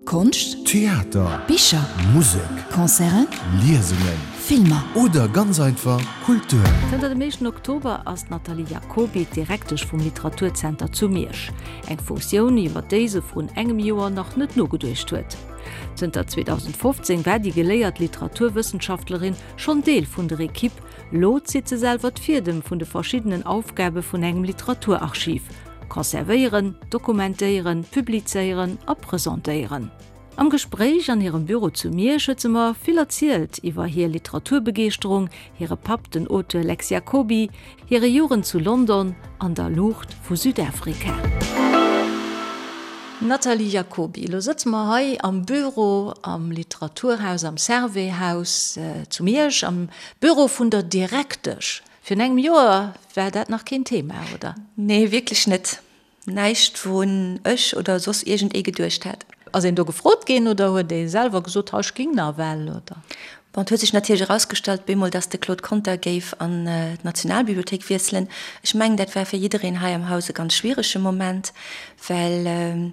Konscht, Theater, Bicher, Musek, Concerten, Liesungen, Filmer. Oder ganz einfach Kultur. Zënter dem éischten Oktober ass d'Nathalie Jacoby d'Direktesch vum Literaturzenter zu Miersch. Eng Funktioun, iwwer déi se vrun engem Joer nach net nogeduecht huet. Zënter 2015 war déi geléiert Literaturwëssenschaftlerin schonn Deel vun der Ekipp. Lo zitt se selwer d'Fiedem vun de verschiddenen Aufgabe vun engem Literaturarchiv. Conservéieren, dokumentéieren, publizéieren a presentéieren. Am Gespréich an hirem Büro zu Miersch huet se mer vill erzielt iwwer hir Literaturbegeeschterung, hire Papp, den Auteur Lex Jacoby, hire Jugend zu London an der Luucht vu Südafrika. Nathalie Jacoby, Elo sëtze mer hei am Büro am Literaturhaus, am Servais-Haus zu Miersch, am Büro vun der Direktesch. Virun engem Joer war dat nach keen Thema, oder? Nee, wierklech net. Näischt, wourun ech oder soss iergend ee geduecht hätt. Ass een do gefrot ginn oder huet ee selwer gesot, ha ech ging nawell, oder? Bon, et huet sech natierlech erausgestallt bemol, dass de Claude Conter géif an d'Nationalbibliothéik wiesselen. Ech mengen, dat war fir jiddereen hei am Haus e ganz schwierege Moment, well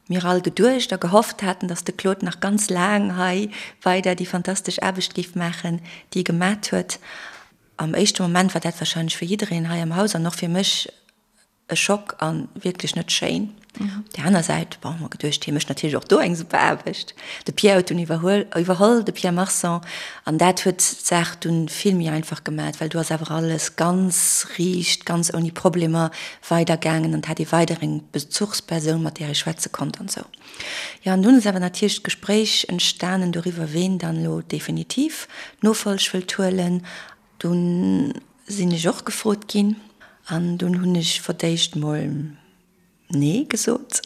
mir all geduecht a gehofft haten, dass de Claude nach ganz laang hei weider déi fantastesch Aarbecht géif maachen, déi e gemat huet. Am éischte Moment war dat wahrscheinlech fir jiddereen hei am Haus an och fir mech e Schock a wierklech net schéin. Op där aner Säit, bon, hu mer geduecht, hie mécht natierlech och do eng super Aarbecht. De Pierre huet dunn iwwerhuel, iwwerholl, de Pierre Marson, an dat huet d'Saach dunn vill méi einfach gemat, well do ass awer alles ganz riicht, ganz ouni Problemer weidergaangen an et hat ee weider eng Bezuchspersoun, mat där ee schwätze konnt an esou. Jo, an dunn ass awer natierlech d'Gespréich entstanen doriwwer, ween dann elo definitiv d'Nofolg wëllt huelen. Dunn sinn ech och gefrot ginn an dunn hunn ech fir d'éischt mol Nee gesot.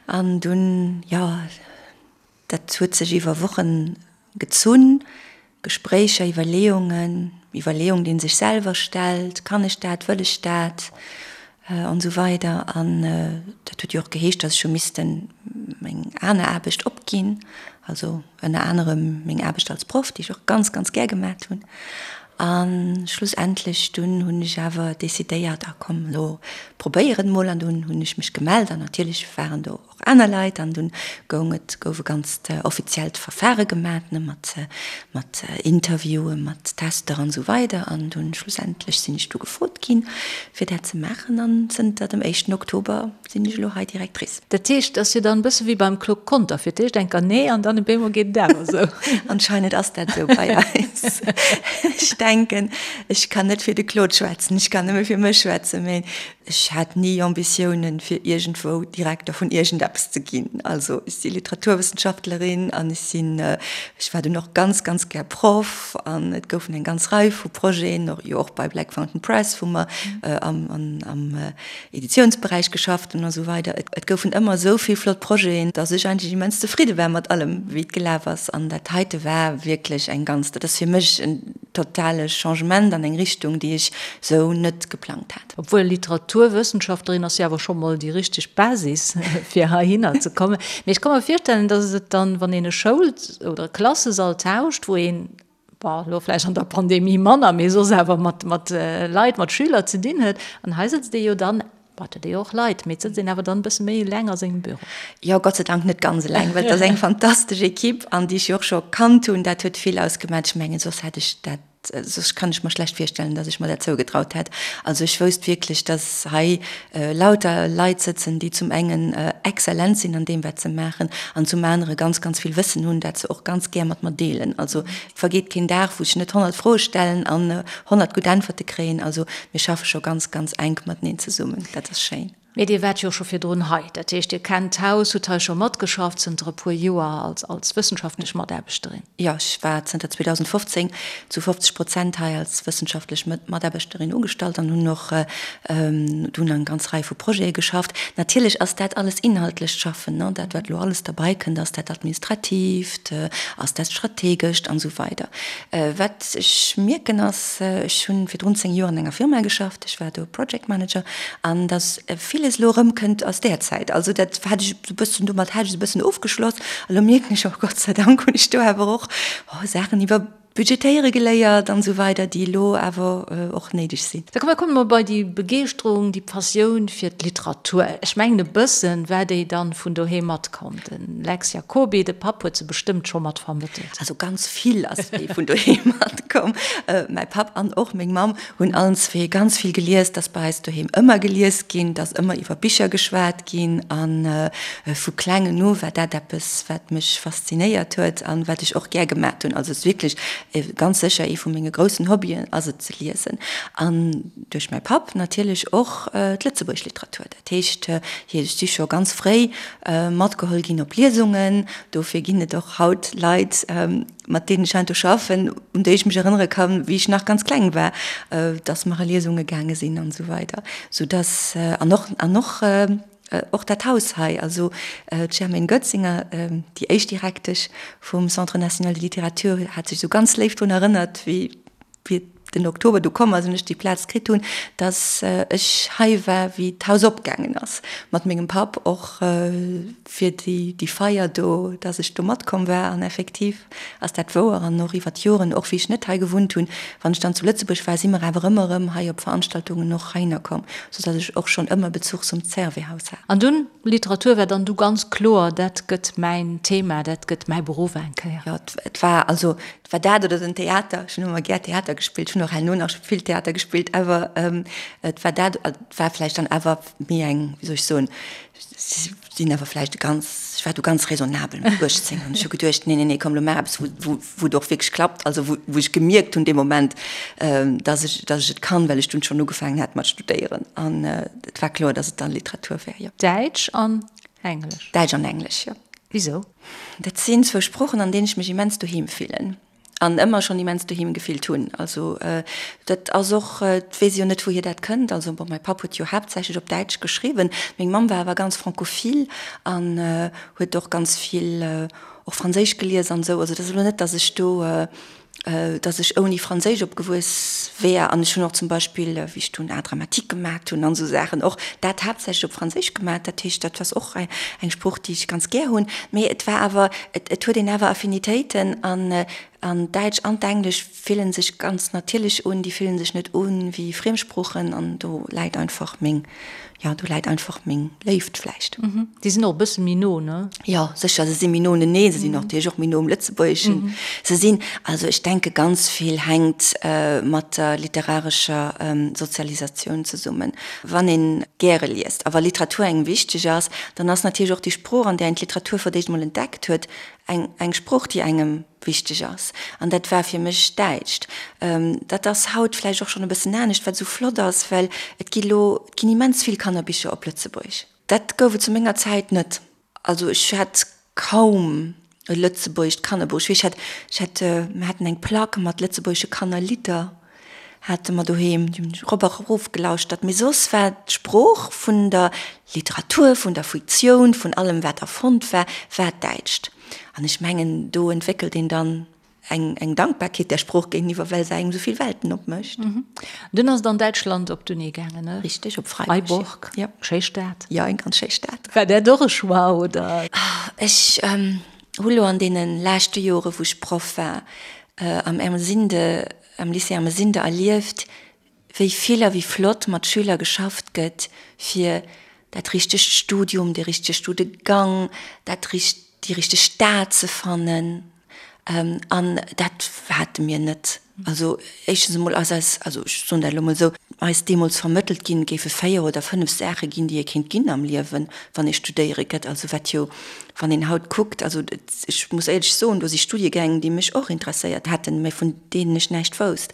An dunn, jo, dat huet sech iwwer Wochen gezunn, Gespréicher, Iwwerleeungen, Iwwerleeung, déi een sech selwer stellt, Kann ech dat, wëll ech dat? An esou weider. An dat huet jo och geheescht, datt ech hu missten meng aner Aarbecht opginn, also ënner anerem meng Aarbecht als Proff, déi ech och ganz, ganz gär gemat hunn. A schlussendlech dunn hunn ech awer decidéiert, ah komm, elo probéier et mol. An dunn hunn ech mech gemellt an natierlech waren do och aner Leit an dunn goung et, gouf e ganzt offiziellt Verfahre gemat, ne, mat, mat Interviewen, mat Tester an esou weider an dunn schlussendlech sinn ech du gefrot ginn, fir dat ze maachen an zënter dem éischten Oktober sinn ech elo hei Directrice. Dat heescht, et ass jo dann e bësse wéi beim Claude Conter, fir d'éischt enker nee an dann op eemol geet et awer esou. Anscheinend ass dat esou bei eis. Ech denken, ech kann net fir de Claude schwätzen, ech kann nëmme fir mech schwätzen, mee Ech hat ni Ambitiounen, fir iergendwou Direkter vun iergendeppes ze ginn. Also ech si Literaturwëssenschaftlerin an ech sinn, ech war dunn och ganz, ganz gär Proff an et goufen eng ganz Rei vu Projeten, och jo och bei Black Fountain Press, wou mer am, am Editiounsberäich geschafft hunn a sou weider. Et goufen ëmmer esou vill flott Projeten, datt ech eigentlech immens zefridde war mat allem, wéi et gelaf ass. An dat heite war wierklech eng ganz, dat ass fir mech en totale Changement an eng Richtung, déi ech sou net geplangt hat. Obwuel Literaturwëssenschaftlerin ass jo awer scho mol déi richteg Basis fir heihinner ze kommen. Mee ech ka mer virstellen, datt et dann, wann een e Schoul oder e Klassesall tauscht, wou een, bon, elo vläicht an der Pandemie manner, mee soss awer mat mat Leit, mat Schüler ze dinn huet, an hei sëtzt ee jo dann, bon, et huet ee jo och Leit, mee et sëtzt een awer dann e bësse méi eleng a sengem Büro. Jo, Gott sei Dank net ganz eleng, well et ass eng fantastesch Equipe an déi ech jo och scho kannt hunn. Dat huet vill ausgemaach. Ech mengen, soss hätt ech dat Soss kann ech mer schlecht virstellen, dass ech mer dat zougetraut hätt. Also ech wousst wierklech, dass hei lauter Leit sëtzen, déi zum engen exzellent sinn an deem, wat se maachen, an zum anere ganz, ganz vill Wëssen hunn, dat se och ganz gär mat mer deelen. Also et vergeet keen Dag, wou ech net 100 Froe stellen an 100 gutt Äntwerte kréien. Also mir schaffe scho ganz, ganz enk mateneen zesummen. Dat ass schéin. Mee Dir waart jo scho virdrun hei, dat heescht Dir kennt d'Haus, hutt hei scho matgeschafft zënter e puer Joer als als wëssenschaftlech Mataarbechterin. Jo, ech war zënter 2015 zu 50 Prozent hei als wëssenschaftlech Mataarbechterin ugestallt an hunn och dunn eng ganz Rei vu Projete geschafft. Natierlech ass dat alles inhaltlecht Schaffen, ne, dat wat elo alles derbei kënnt, ass dat Administratiivt, ass dat Strategescht an esou weider. Wat ech mierken ass, ech hunn virdrun 10 Joer an enger Firma geschafft, ech war do Project Manager, an datt villes elo erëmkënnt aus där Zäit. Also dat hat ech esou e bëssen, domat hat ech esou e bëssen ofgeschloss. A lo mierken ech, oh Gott sei Dank hunn ech do awer och Saachen iwwer. Budgetéiere geléiert an esou weider, déi elo awer och néideg sinn. Da komme mer bei déi Begeeschterung, déi Passioun fir d'Literatur. Ech mengen e bëssen war déi dann vun doheem matkomm. De Lex Jacoby, de Papp huet se bestëmmt scho mat vermëttelt. Also ganz vill ass déi vun doheem matkomm. Mäi Papp an och meng Mamm hunn allen zwee ganz vill gelies. Et ass bei eis doheem ëmmer gelies ginn, et ass ëmmer iwwer Bicher geschwat ginn a vu klengen u war dat eppes, wat mech faszinéiert huet an wat ech och gär gemat hunn. Also et ass wierklech ganz sécher ee vu menge groussen Hobbyen ass et ze liesen. An duerch mäi Papp natierlech och d'lëtzebuergesch Literatur. Dat heescht, hie ech si scho ganz fréi matgeholl ginn op Liesungen. Dofir ginn et och haut Leit, mat deenen ech heiansdo schaffen, un déi ech mech erënnere kann, wéi ech nach ganz kleng war, dass mer a Liesunge gaange sinn an esou weider. Soudass, an och, an och, och dat Haus hei, also d'Germaine Goetzinger, déi éischt Direktesch vum Centre national de littérature, hat sech esou ganz léif drun erënnert, wéi, wéi den Oktober du komm ass an ech déi Plaz kritt hunn, dass ech hei war, wéi d'Haus opgaangen ass, mat mengem Papp och fir déi, déi Feier do, dass ech do matkomm war. An effektiv ass dat wouer. An och iwwer d'Joren, och wéi ech net hei gewunnt hunn, wann ech dann zu Lëtzebuerg war, si mer awer ëmmer erëm hei op Veranstaltungen och heihinner komm, soudass ech och schonn ëmmer Bezuch zum Servais-Haus hat. An dunn, Literatur war dann du ganz kloer, dat gëtt mäin Thema, dat gëtt mäi Beruff eng Kéier? Jo, et war also Et war dat oder den Theater. Ech hunn ëmmer gär Theater gespillt. Ech hunn och herno nach vill Theater gespillt, awer et war dat, et war vläicht dann awer méi eng, wéi soll ech soen, sinn awer vläicht e ganz, ech war du ganz raisonnabel mat 18 an ech hu geduecht, nee, nee, nee, komm, lo maach eppes, wou, wou, wou et och wierklech klappt, also wou, wou ech gemierkt hunn dee Moment, dass ech, dass ech et kann, well ech dunn schonn ugefaangen hat mat studéieren an et war kloer, dass et dann Literatur wär, jo. Däitsch an Englesch? Däitsch an Englesch, jo. Wisou? Dat sinn zwou Sproochen, an deenen ech mech immens doheem fillen an ëmmer schonn immens doheem gefillt hunn. Also dat ass och, et weess ech jo net, wouhier dat kënnt. Also bon, mäi Papp huet jo haaptsächlech op Däitsch geschriwwen, meng Mamm war awer ganz francophile an huet och ganz vill och Franséisch gelies an esou. Also et ass elo net, datt ech do dass ech ouni Franséisch opgewuess wär an ech hunn och zum Beispill, wéi ech dunn Art dramatique gemat hunn an esou Saachen, och dat haaptsächlech op Franséisch gemat. Dat heescht, dat ass och eng Sprooch, déi ech ganz gär hunn. Mee et war awer, et huet een awer Affinitéiten an an Däitsch an d'Englesch fillen sech ganz natierlech un, déi fillen sech net u wéi Friemsproochen an do läit einfach meng Jo, do läit einfach meng Léift vläicht. Déi sinn och e bësse méi no, ne? Jo, sécher, se si méi no uneneen. Se sinn och natierlech och méi no um Lëtzebuergeschen. Se sinn, also ech denke ganz vill hänkt mat der literarescher Sozialisatioun zesummen. Wann ee gäre liest a wa Literatur engem wichteg ass, dann ass natierlech och déi Sprooch, an där een d'Literatur fir d'éischt emol entdeckt huet, eng eng Sprooch, déi engem wichteg ass. An dat war fir mech d'Däitscht. Dat ass haut vläicht och schonn e bëssen anescht, wat esou flott ass, well et gi lo, et ginn immens vill Kannerbicher op Lëtzebuergesch. Dat gouf et zu menger Zäit net. Also ech hat kaum e lëtzebuergescht Kannerbuch. Ech weess, ech hat, ech hat, mir haten eng Plack mat lëtzebuergesche Kannerlidder hate mer doheem, déi hunn ech erop a erof gelauschtert. Mee soss war d'Sprooch vun der Literatur, vun der Fiktioun, vun allem wat erfonnt war, war d'Däitscht. An ech mengen, do entwéckelt een dann eng, eng Dankbarkeet där Sprooch géinteniwwer, well se engem esou vill Welten opmécht. Dunn ass et an Däitschland op d'Uni gaangen, ne? Richteg, op Freiburg. Freiburg, ja. Schéi Stad. Jo, eng ganz schéi Stad. War dat och e Choix, oder? Ech hu lo an deene leschte Jore, wou ech Proff war, am Ermesinde, am Lycée Ermesinde erlieft, wéi vill a wéi flott mat Schüler geschafft gëtt, fir dat richtegt Studium, de richtege Studegang, dat richt, déi richteg Stad ze fannen. An dat hate mir net. Also éischtens emol ass eis, also ech soen dat elo emol esou, eis deemools vermëttelt ginn, et géife 4 oder 5 Saache ginn, déi ee kéint ginn am Liewen, wann ee studéiere gëtt. Also wat jo, wann een haut kuckt, also ech muss éierlech soen, do si Studiegäng, déi mech och interesséiert hätten, mä vun deenen ech näischt wousst.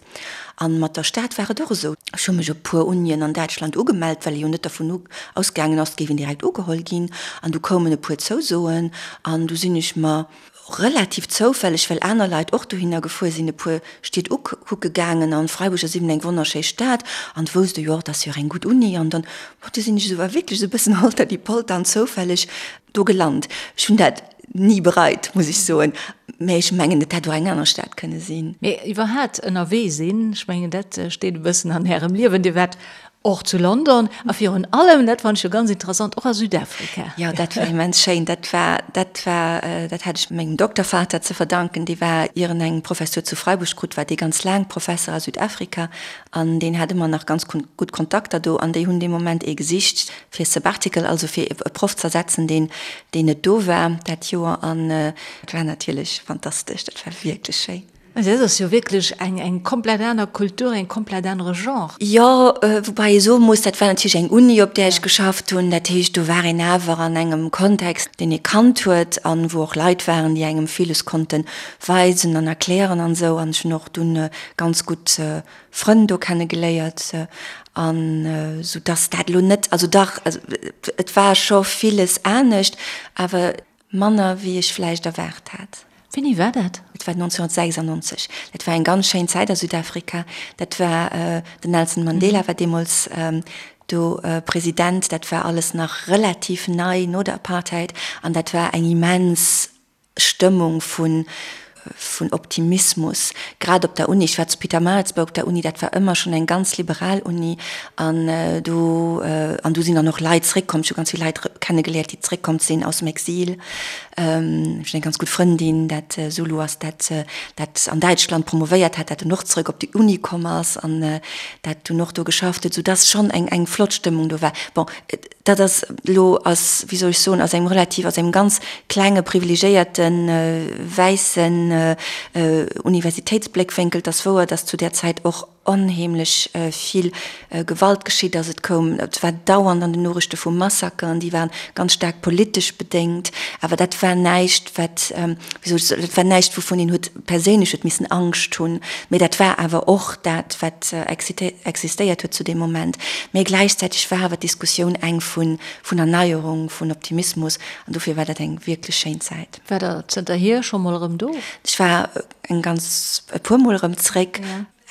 An mat der Stad war et och esou. Ech hu mech op puer Unien an Däitschland ugemellt, well ee jo net dervun ausgaangen ass, et géif een direkt ugeholl ginn. An du koumen e puer Zousoen an du sinn ech mer Relativ zoufälleg, well aner Leit och dohinner gefuer sinn, e puer Stied ukucke gaangen an Freiburg ass eben eng wonnerschéi Stad an wousst e jo och, et ass jo och eng gutt Uni an dann, bon, du sinn ech esou wierklech esou e bëssen holter die Polter an zoufälleg do gelant. Ech hunn dat ni bereit, muss ech soen, mä ech mengen, et hätt och eng aner Stad kënne sinn. Mee iwwerhaat ënnerwee sinn, ech mengen dat steet e bëssen an Ärem Liewen. Dir waart. Och zu London a virun allem, dat fannen ech jo ganz interessant, och a Südafrika. Jo, dat war immens schéin. Dat war, dat war, dat hat ech mengem Doktervater ze verdanken. Dee war, ier en eng Professur zu Freiburg krut, war dee ganz laang Professer a Südafrika an deen hat ëmmer nach ganz gutt Kontakter do an déi hunn dee Moment ee gesicht fir Sabbatical, also fir e Proff z'ersetzen, deen, deen net do war dat Joer an dat war natierlech fantastesch. Dat war wierklech schéin. Dat ass jo wierklech eng eng komplett aner Kultur, eng komplett anere Genre. Jo, woubäi ee soe muss, dat war natierlech eng Uni, op där ech geschafft hunn. Dat heescht, do war een awer an engem Kontext, deen ee kannt huet an wou och Leit waren, déi engem villes konnte weisen an erklären an esou. An ech hunn och dunn ganz gutt Frënn do kenne geléiert an esou dass dat elo net, also dach, et war scho villes anescht, awer Manner wéi ech vläicht erwaart hat. Wéini war dat? Et war 1996. Dat war eng ganz schéin Zäit a Südafrika. Dat war, den Nelson Mandela war deemools do President. Dat war alles nach relativ nei no der Apartheid an dat war eng immens Stëmmung vun vun Optimismus, grad op der Uni. Ech war zu Pietermaritzburg op der Uni, dat war ëmmer schonn eng ganz liberal Uni an do, an do sinn dann och Leit zréckkomm, ech hu ganz vill Leit kennegeléiert, déi zréckkomm sinn aus dem Exil. Ech hunn eng ganz gutt Frëndin, dat Zulu ass, dat dat an Däitschland promovéiert hat, dat dunn och zrëck op déi Uni komm ass an dat dunn och do geschafft huet, soudass schonn eng eng flott Stëmmung do war. Bon, Dat ass elo aus, wéi soll ech soen, aus engem relativ, aus engem ganz klenge privilegiéierte wäissen Universitéitsbléckwénkel. Et ass wouer, datt zu där Zäit och onheemlech vill Gewalt geschitt ass. Et koum, et war dauernd an den Noriichte vu Massakeren, déi waren ganz staark politesch bedéngt. Awer dat war näischt, wat, wéi soll ech soen, dat war näischt, wouvun een huet perséinlech huet missen Angscht hunn, mee dat war awer och dat, wat existéiert huet zu deem Moment. Mee gläichzäiteg war awer d'Diskussioun eng vun Erneierung, vun Optimismus, an dofir war dat eng wierklech schéin Zäit. War Der zënterhier scho mol erëm do? Ech war eng ganz, e puer Mol erëm zréck.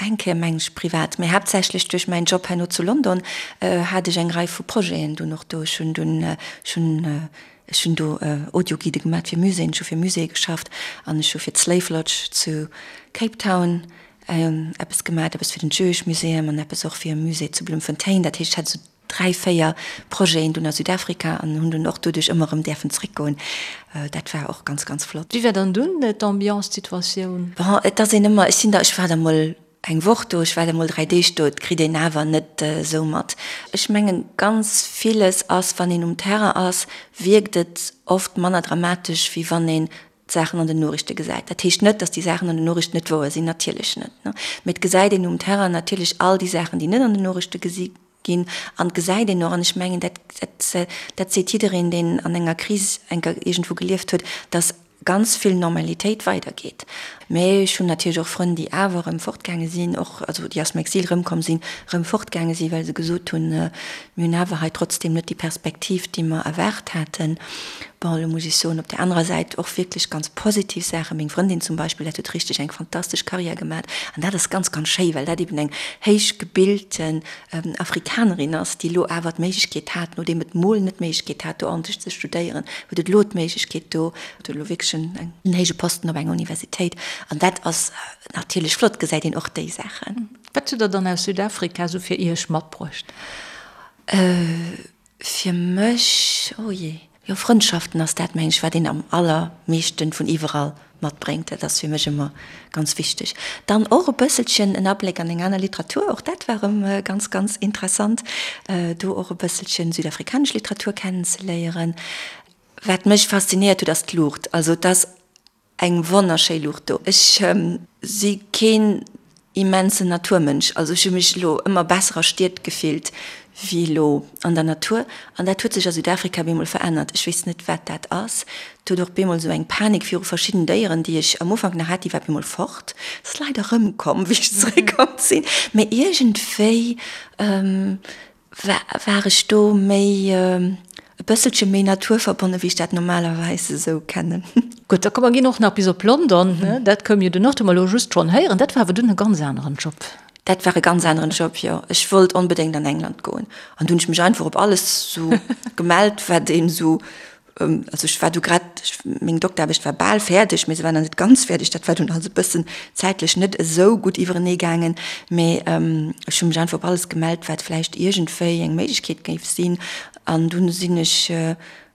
Eng Kéier mengen ech privat, mee haaptsächlech duerch mäin Job herno zu London hat ech eng Rei vu Projeten dunn och do. Ech hunn dunn, ech hunn, ech hunn do Audioguidë gemaat fir Muséeën, ech hu fir Muséeë geschafft an ech hu fir d'Slave Lodge zu Cape Town eppes gemaat, eppes fir den Jewish Museum an eppes och fir e Musée zu Bloemfontein. Dat heescht, ech hat esou 3, 4 Projeten dunn a Südafrika an hunn dunn och doduerch ëmmer erëm däerfen zréckgoen. Dat war och ganz, ganz flott. Wéi war dann dunn d'Ambiance, d'Situatioun? Bon, et ass een ëmmer, ech sinn da, ech war da mol eng Woch do, ech war da mol 3 Deeg do, et kritt een awer net esou mat. Ech mengen, ganz villes ass, wann een um Terrain ass, wierkt et oft manner dramatesch, wéi wann een d'Saachen an den Noriichte gesäit. Dat heescht net, datt déi Saachen an den Noriichten net wouer sinn, natierlech net, mee et gesäit een um Terrain natierlech all déi Saachen, déi net an den Noriichte gesi Ginn. An et gesäit een och, an ech mengen, dat, dat, dat seet jiddereen, deen an enger Kris eng Kéier iergendwou gelieft huet, dass ganz vill Normalitéit weidergeet. Mä ech hunn natierlech och Frënn, déi awer erëm fortgaange sinn, och, also déi aus dem Exil erëmkomm sinn, erëm fortgaange sinn, well se gesot hunn, Mir hunn awer hei trotzdem net déi Perspektiv, déi mer erwaart haten. Bon, elo muss ech soen, op där anerer Säit och wierklech ganz positiv Saachen. Meng Frëndin zum Beispill, dat huet richteg eng fantastesch Karriär gemat. An dat ass ganz, ganz schéi, well dat eben eng héich gebilten Afrikanerin ass, déi elo awer d'Méiglechkeet hat, nodeem et mol net d'Méiglechkeet hat, do ordentlech ze studéieren, huet et elo d'Méiglechkeet do, huet elo wierklech en héije Posten op enger Universitéit. An dat ass natierlech flott, gesäit een och déi Saachen. Wat hutt Der dann aus Südafrika esou fir Iech matbruecht? Fir mech, oh jee, jo Frëndschaften ass dat mengen ech wat een am allermeeschten vun iwwerall matbréngt. Dat ass fir mech ëmmer ganz wichteg. Dann och e bësselchen en Abléck an eng aner Literatur, och dat war erëm ganz ganz interessant, do och e bësselchen südafrikanesch Literatur kennenzeléieren. Wat mech faszinéiert huet ass d'Luucht, also et ass Eng wonnerschéi Luucht do. Ech si keen immensen Naturmënsch, also ech hu mech elo ëmmer besser a Stied gefillt wéi elo an der Natur. An dat huet sech a Südafrika bemol verännert. Ech weess net wat dat ass. Et huet och bemol esou eng Panik viru verschidden Déieren, déi ech am Ufank nach hat, déi war bemol fort. Ass leider erëmkomm wéi ech zeréckkomm sinn. Mee iergendwéi War ech do méi e bësselche méi naturverbonne wéi ech dat normalerweis esou kennen. Gutt, da komm mer ginn och nach bis op London, ne? Dat koum jo dunn och, hu mer elo just schonn héieren. Dat war awer dunn e ganz aneren Job. Dat war e ganz aneren Job, jo. Ech wollt onbedéngt an England goen an du hunn ech mech einfach op alles sou gemellt, wat een esou. Also ech war du grad, meng Dokteraarbecht war bal fäerdeg, mee se war nach net ganz fäerdeg. Dat war dunn alles e bëssen zäitlech net esou gutt iwwerenee gaangen. Mee ech hu mech einfach op alles gemellt, wat vläicht iergendwéi eng Méiglechkeet géif sinn. An dunn sinn ech,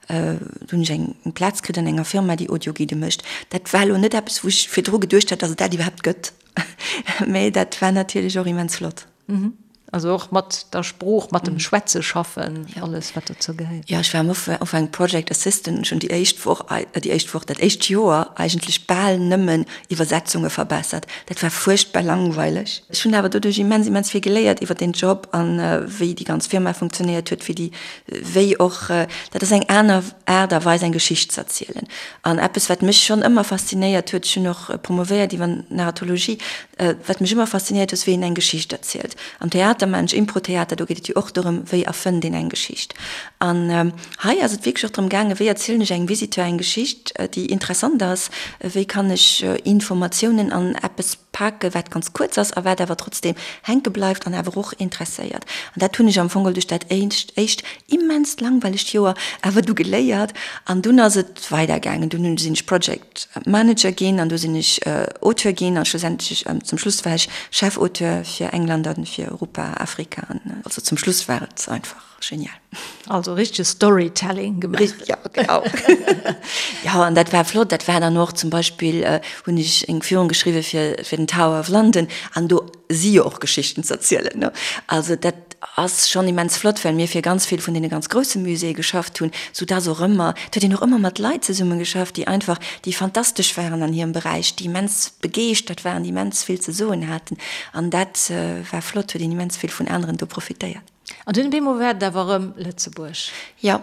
du hunn ech eng Plaz kritt an enger Firma, déi Audioguidë mécht. Dat war elo net eppes, wou ech virdru geduecht hat, datt et dat iwwerhaapt gëtt. Mee dat war natierlech och immens flott. Also och mat der Sprooch, mat dem Schwätze schaffen, alles wat dozou gehéiert. Jo, ech war am Ufank Project Assistant an ech hunn déi éischt Woch, déi éischt Woch, dat éischt Joer eigentlech bal nëmmen Iwwersetzunge verbessert. Dat war fuerchtbar langweileg. Ech hunn awer doduerch immens, immens vill geléiert iwwer deen Job an wéi déi ganz Firma funktionéiert huet, wéi déi, wéi och, dat ass eng aner Aart a Weis eng Geschicht ze erzielen. An eppes wat mech schonn ëmmer faszinéiert huet, ech hunn och promovéiert iwwer Narratologie, Wat mech ëmmer faszinéiert ass, wéi een eng Geschicht erzielt. Am Theater maachen ech Impro-Theater, do geet et jo och dorëm, wéi erfënnt een eng Geschicht. An hei ass et wierklech och drëm gaangen, wéi erzielen ech engem Visiteur eng Geschicht, déi interessant ass, wéi kann ech Informatiounen an eppes paken, wat ganz kuerz ass a wat awer trotzdeem hänke bleift an awer och interesséiert. An dat hunn ech am Fong geholl duerch dat éischt immenst langweilegt Joer awer du geléiert. An dunn ass et weidergaangen, dunn sinn ech Project. Manager ginn an du sinn ech Auteur ginn an schlussendlech zum Schluss war ech Chefauteur fir England an fir Europa, Afrika an also zum Schluss war et einfach genial. Also richtege Storytelling gemaach. Richteg, ja genau. Jo an dat war flott, dat war dann och zum Beispill hunn ech eng Führung geschriwwe fir fir den Tower of London an do si jo och Geschichten ze erzielen ne. Also dat ass schonn immens flott, well mir fir ganz vill vun deene ganz grousse Muséeë geschafft hunn, sou dass och ëmmer, et huet een och ëmmer mat Leit zesumme geschafft, déi einfach, déi fantastesch waren an hirem Beräich, déi immens begeeschtert waren, déi immens vill ze soen haten an dat war flott, huet een immens vill vun aneren do profitéiert. An dunn op eemol war et awer erëm Lëtzebuerg. Jo,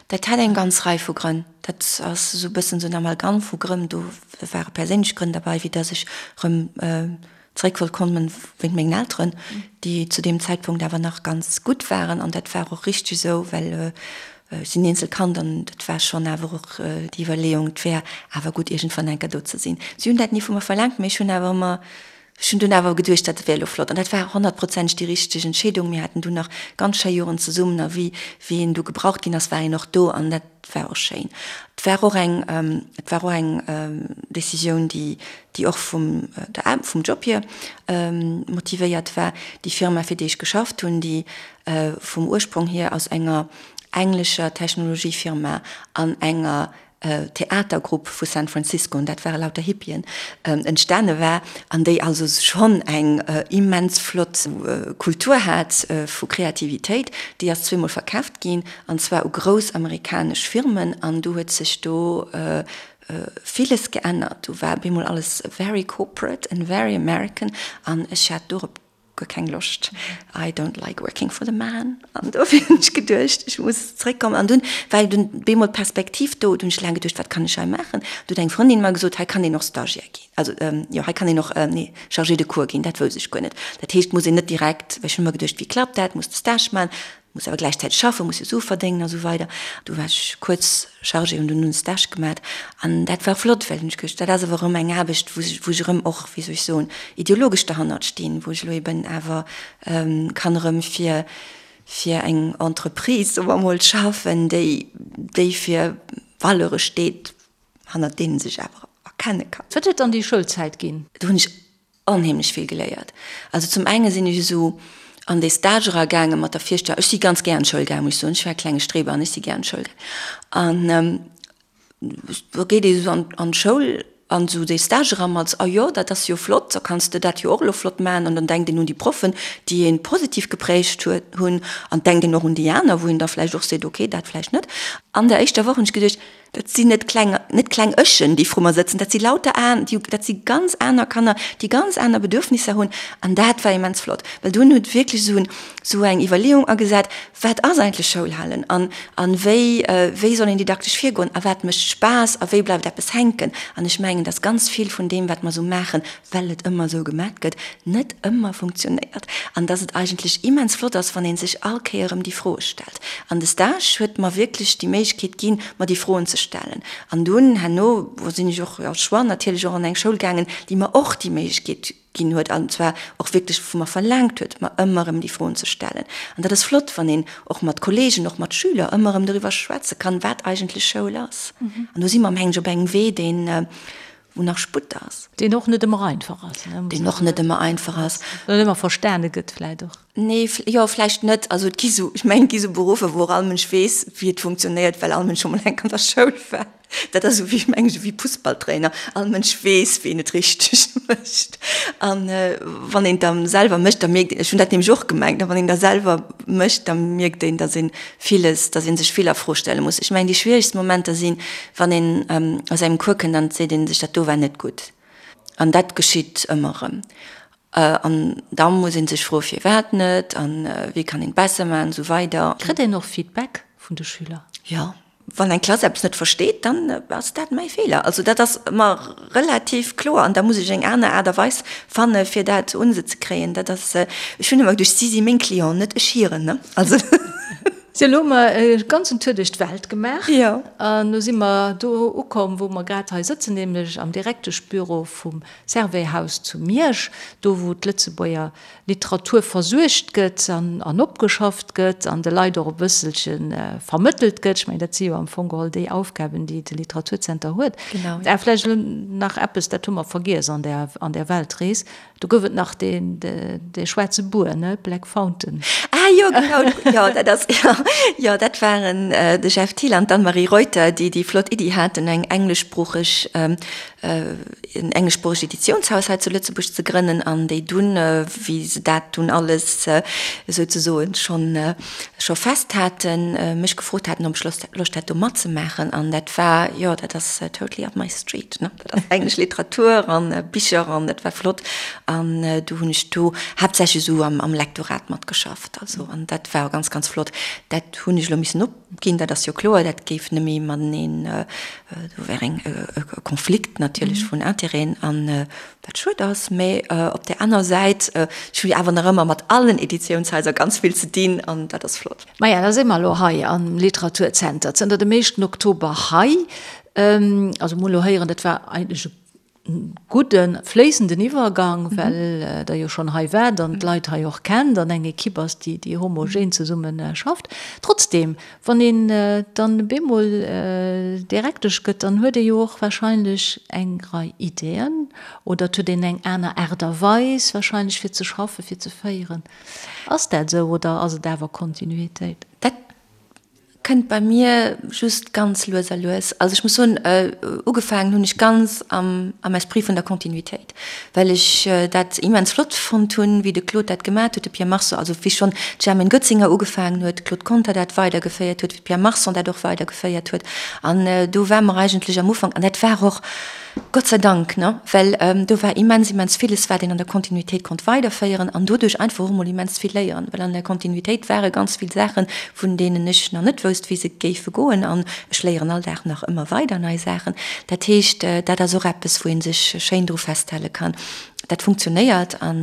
dat hat eng ganz Rei vu Grënn. Dat ass esou e bëssen esou en Amalgam vu Grënn. Do ware perséinlech Grënn derbei, wéi dass ech erëm Zeréck wollt kommen wéint mengen Elteren, déi zu deem Zäitpunkt awer nach ganz gutt waren. An dat war och richteg esou, well ech sinn Eenzelkand an dat war schonn awer och déi Iwwerleeung, et wär awer gutt iergendwann eng Kéier do ze sinn. Si hunn dat ni vu mer verlaangt, mee ech hunn awer ëmmer, ech hunn dunn awer geduecht, dat wär elo flott. An dat war honnertprozenteg déi richteg Entscheedung. Mir haten dunn nach ganz schéi Joren zesummen a wéi wéi een du gebraucht ginn ass, war een och do an dat war och schéin. Et war och eng, et war och eng Décisioun, déi déi och vum der vum Job hier motivéiert war. Déi Firma, fir déi ech geschafft hunn, déi vum Ursprong hier aus enger englescher Technologiefirma an enger Theatergrupp vu San Francisco, an dat ware lauter Hippien, entstane war, an déi also schonn eng immens flott Kultur hat vu Kreativitéit, déi ass zweemol verkaaft ginn, an zwar u grouss amerikanesch Firmen, an du huet sech do villes geännert. Do war bemol alles very corporate and very American an ech hat dorop guer keng Loscht. I don't like working for the man. An dofir hunn ech geduecht, ech muss zréckkommen. An dunn war dunn bemol d'Perspektiv do. Du hunn ech laang geduecht, wat kann ech hei maachen? Du huet eng Frëndin mer gesot, hei kann een och Stagiaire ginn. Also jo, hei kann een och, nee, Chargé de cours ginn. Dat wousst ech guer net. Dat heescht, muss een net direkt, well ech hunn ëmmer geduecht, wéi klappt dat, muss de Stage maachen. Muss awer gläichzäiteg schaffen, muss jo Sue verdéngen a sou weider. Du war ech kuerz Chargée, hunn dunn en Stage gemat an dat war flott, well hunn ech geduecht, dat ass awer erëm eng Aarbecht, wou ech erëm och, wéi soll ech soen, ideologesch derhannert stinn, wou ech elo eben awer kann erëm fir fir eng Entreprise, soe mer emol, schaffen, déi déi fir Valeure steet, hannert deenen sech awer erkenne kann. Wat huet dann déi Schoulzäit ginn? Do hunn ech onheemlech vill geléiert. Also zum enge sinn ech esou an dee Stage era gaange mat der Virstellung, ech si ganz gär an d'Schoul gaangen, muss ech soen, ech war e klenge Streber an ech si gär an d'Schoul gaangen. An da geet ee esou an d'Schoul an esou dee Stage era mat, ah jo, dat ass jo flott, da kanns de dat jo och elo flott maachen. An dann denkt een un déi Proffen, déi ee positiv geprägt huet hunn an denkt een och un déi aner, wou een da vläicht och seet, okay, dat vläicht net. An der éischter Woch hunn ech geduecht, Dat sinn net kleng, net kleng Ëchen, déi vru mer sëtzen, dat si lauter an, déi, dat si ganz aner Kanner, déi ganz aner Bedürfnisser hunn. An dat war immens flott, well dunn huet wierklech esou en, esou eng Iwwerleeung agesat, Wat ass eigentlech Schoulhalen an, an wéi, wéi soll een didaktesch virgoen a wat mécht Spaass a wéi bleift eppes hänken? An ech mengen, dass ganz vill vun deem, wat mer esou maachen, well et ëmmer esou gemat gëtt, net ëmmer funktionéiert an dass et eigentlech immens flott ass, wann ee sech all Kéier erëm déi Froe stellt. An de Stage huet mer wierklech déi Méiglechkeet. d'Méiglechkeet ginn, mer déi Froen ze stellen. An dunn herno sinn ech och als Choix natierlech och an eng Schoul gaangen, déi mer och déi Méiglechkeet ginn huet, an zwar och wierklech vu mer verlaangt huet, mer ëmmer erëm déi Froen ze stellen. An dat ass flott, wann een och mat Kollegen, och mat Schüler ëmmer erëm doriwwer schwätze kann, wat eigentlech Schoul ass. An do si mer, mengen ech, op engem Wee, deen, wou nach Sputt ass. Deen och net ëmmer einfach ass, ne? Deen och net ëmmer einfach ass. Net ëmmer verstane gëtt vläicht och. Nee, jo, vläicht net. Also et gi sou, ech mengen, et gi sou Beruffer, wou och all Mënsch weess, wéi et funktionéiert, well all Mënsch scho mol eng Kéier an der Schoul war. Dat ass esou wéi, mengen ech, wéi Fussballtrainer. All Mënsch weess, wéi een et richteg mécht. An wann een et da selwer mécht, da mierkt een, ech hunn dat nämlech och gemengt, a wann een da selwer mécht, da mierkt een, datt ee villes, datt ee sech vill a Fro stelle muss. Ech mengen, déi schwieregst Momenter sinn, wann een aus engem Cours kënnt an et seet ee sech, dat do war net gutt. An dat geschitt ëmmer erëm. An da muss ee sech froe firwat net an wéi kann een et besser maachen an esou weider. Kritt een och Feedback vun de Schüler? Jo, wann eng Klass eppes net versteet, dann ass dat mäi Feeler. Also dat ass ëmmer relativ kloer an da muss ech eng aner Aart a Weis fanne fir dat un se ze kréien. Dat ass, ech hunn ëmmer geduecht, si si meng Clienten, net ech hiren, ne? Also. Sou, elo hu mer e ganzen Tour duerch d'Welt gemaach. Jo. An elo si mer do ukomm, wou mer grad hei sëtzen, nämlech am Direkteschbüro vum Servais-Haus zu Miersch, do wou d'Lëtzebuerger Literatur versuergt gëtt an opgeschafft gëtt an de Leit och e bësselche vermëttelt gëtt. Ech mengen, dat si jo am Fong geholl déi Aufgaben, déi de Literaturzenter huet. A vläicht elo nach eppes, dat hu mer vergiess an där, an där Weltrees, do gouf et nach deen, dee schwaarze Buer, ne, Black Fountain. Ah jo, genau, jo, dat ass, jo, jo, dat waren de Jeff Thiel an d'Anne-Marie Reuter, déi déi flott Iddi haten, eng engleschsproocheg en engleschsproochegt Editiounshaus hei zu Lëtzebuerg ze grënnen an déi dunn, wéi se dat dunn alles souzesoen schonn scho fest haten, mech gefrot haten, ob ech Loscht Loscht hätt do matzemaachen. An dat war, jo, dat ass totally up my street, ne. Dat ass englesch Literatur an Bicher an dat war flott. An du hunn ech do haaptsächlech esou am am Lektorat matgeschafft, also an dat war ganz, ganz flott. Dat hunn ech elo missen op. Ginn, dat ass jo kloer, dat géif nëmme mateneen, do wär eng e Konflikt natierlech vun Intérêten, an wat schued ass. Mä op där aner Säit, ech hu jo awer nach ëmmer mat allen Editiounshaiser ganz vill ze dinn, an dat ass flott. Maja, da si mer elo hei am Literaturzenter, zënter dem éischten Oktober hei. Also mol elo héieren, dat war eigentlech e gudden, fléissenden Iwwergang, well Der jo schonn hei waart an d'Leit hei och kennt an eng Ekipp ass, déi, déi homogen zesumme schafft. Trotzdem, wann een dann bemol Direktesch gëtt, dann huet ee jo och wahrscheinlech eng Rei Ideeën oder et huet een eng aner Aart a Weis wahrscheinlech fir ze schaffen, fir ze féieren. Ass dat esou oder ass et awer Kontinuitéit? Dat Kënnt bei mir just ganz lues a lues. Also ech muss soen, ugefaangen hunn ech ganz am am Esprit vun der Kontinuitéit, well ech dat immens flott fonnt hunn, wéi de Claude dat gemat huet, de Pierre Marson, also wéi schonn d'Germaine Goetzinger ugefaangen huet, de Claude Conter dat weidergeféiert huet, wéi de Pierre Marson dat och weidergeféiert huet. An do war mer eigentlech am Ufank, an dat war och, Gott sei Dank, ne, well do war immens, immens villes, wat een an der Kontinuitéit konnt weiderféieren an doduerch einfach och emol immens vill léieren, well an der Kontinuitéit ware ganz vill Saachen, vun deenen ech nach net wousst, wéi se géife goen an ech léieren all Dag nach ëmmer weider nei Saachen. Dat heescht, dat ass och eppes, wou ee sech schéin dru festhale kann. Dat funktionéiert a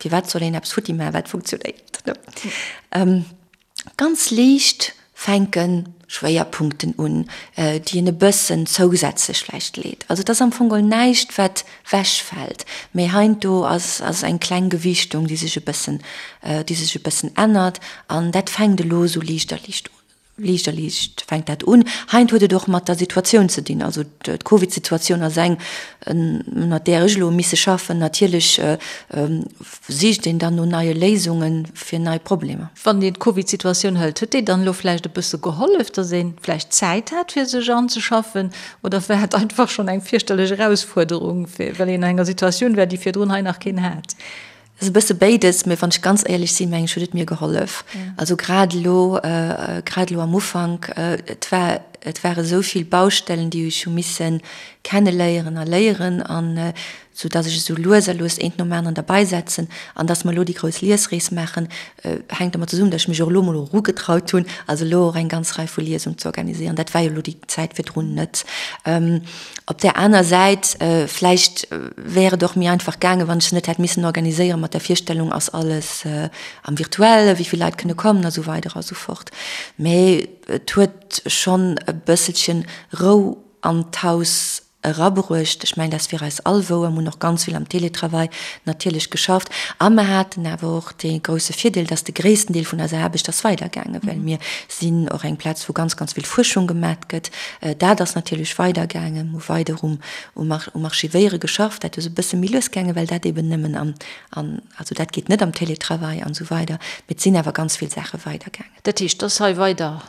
firwat soll een eppes futti maachen, wat funktionéiert, ne? Ganz liicht fänke Schwéierpunkten un, déi een e bëssen zousätzlech vläicht leet. Also et ass am Fong geholl näischt, wat wechfält, mee heiansdo ass ass eng kleng Gewichtung, déi sech e bëssen, déi sech e bëssen ännert. An dat fänkt elo esou liicht a liicht un, liicht a liicht fänkt dat un. Heiansdo huet et och mat der Situatioun ze dinn. Also d'Covid-Situatioun ass eng, ënnert där ech elo misse schaffen. Natierlech Sicht een dann no neie Léisunge fir nei Problemer? Wann een d'Covid-Situatioun hëlt, huet déi dann elo vläicht e bësse gehollef, datt ee vläicht Zäit hat fir sech anzeschaffen? Oder war et einfach schonn eng fierchterlech Erausfuerderung, well een an enger Situatioun war, déi virdrun hei nach keen hat? Et ass e bësse béides, mee wann ech ganz éierlech sinn, meng ech, huet et mir gehollef. Also grad elo, grad elo am Ufank, et war, et ware sou vill Baustellen, déi ech hu misse kenneléieren a léieren an sou dass ech esou lues a lues eent nom aneren derbeisetzen an dass mer elo déi grouss Liesrees maachen, hänkt domat zesummen, dass ech mech och elo emol erugetraut hunn, also elo och eng ganz Rei vu Liesung ze organisieren. Dat war jo elo déi Zäit virdrun net. Op där aner Säit, vläicht wär et och méi einfach gaangen, wann ech se net hätt missen organiséieren mat der Virstellung, ass alles am Virtuellen, wéi vill Leit kënne kommen a sou weider a sou fort. Mee et huet schonn. e bësselchen Rou an d'Haus erabruecht. Ech mengen, dat ass fir eis all wouer. Mir hunn och ganz vill am Télétravail natierlech geschafft. A mer haten awer och dee grousse Virdeel, dass de gréissten Deel vun eiser Aarbecht ass weidergaangen, well mir sinn och eng Plaz, wou ganz, ganz vill Fuerschung gemat gëtt. Dat ass natierlech weidergaangen. Mir hu weider um, um Archivéiere geschafft. Dat ass e bësse méi lues gaangen, well dat eben nëmmen am, an, also dat geet net am Télétravail an esou weider. Mee et sinn awer ganz vill Saache weidergaangen. Dat heescht, dass hei weider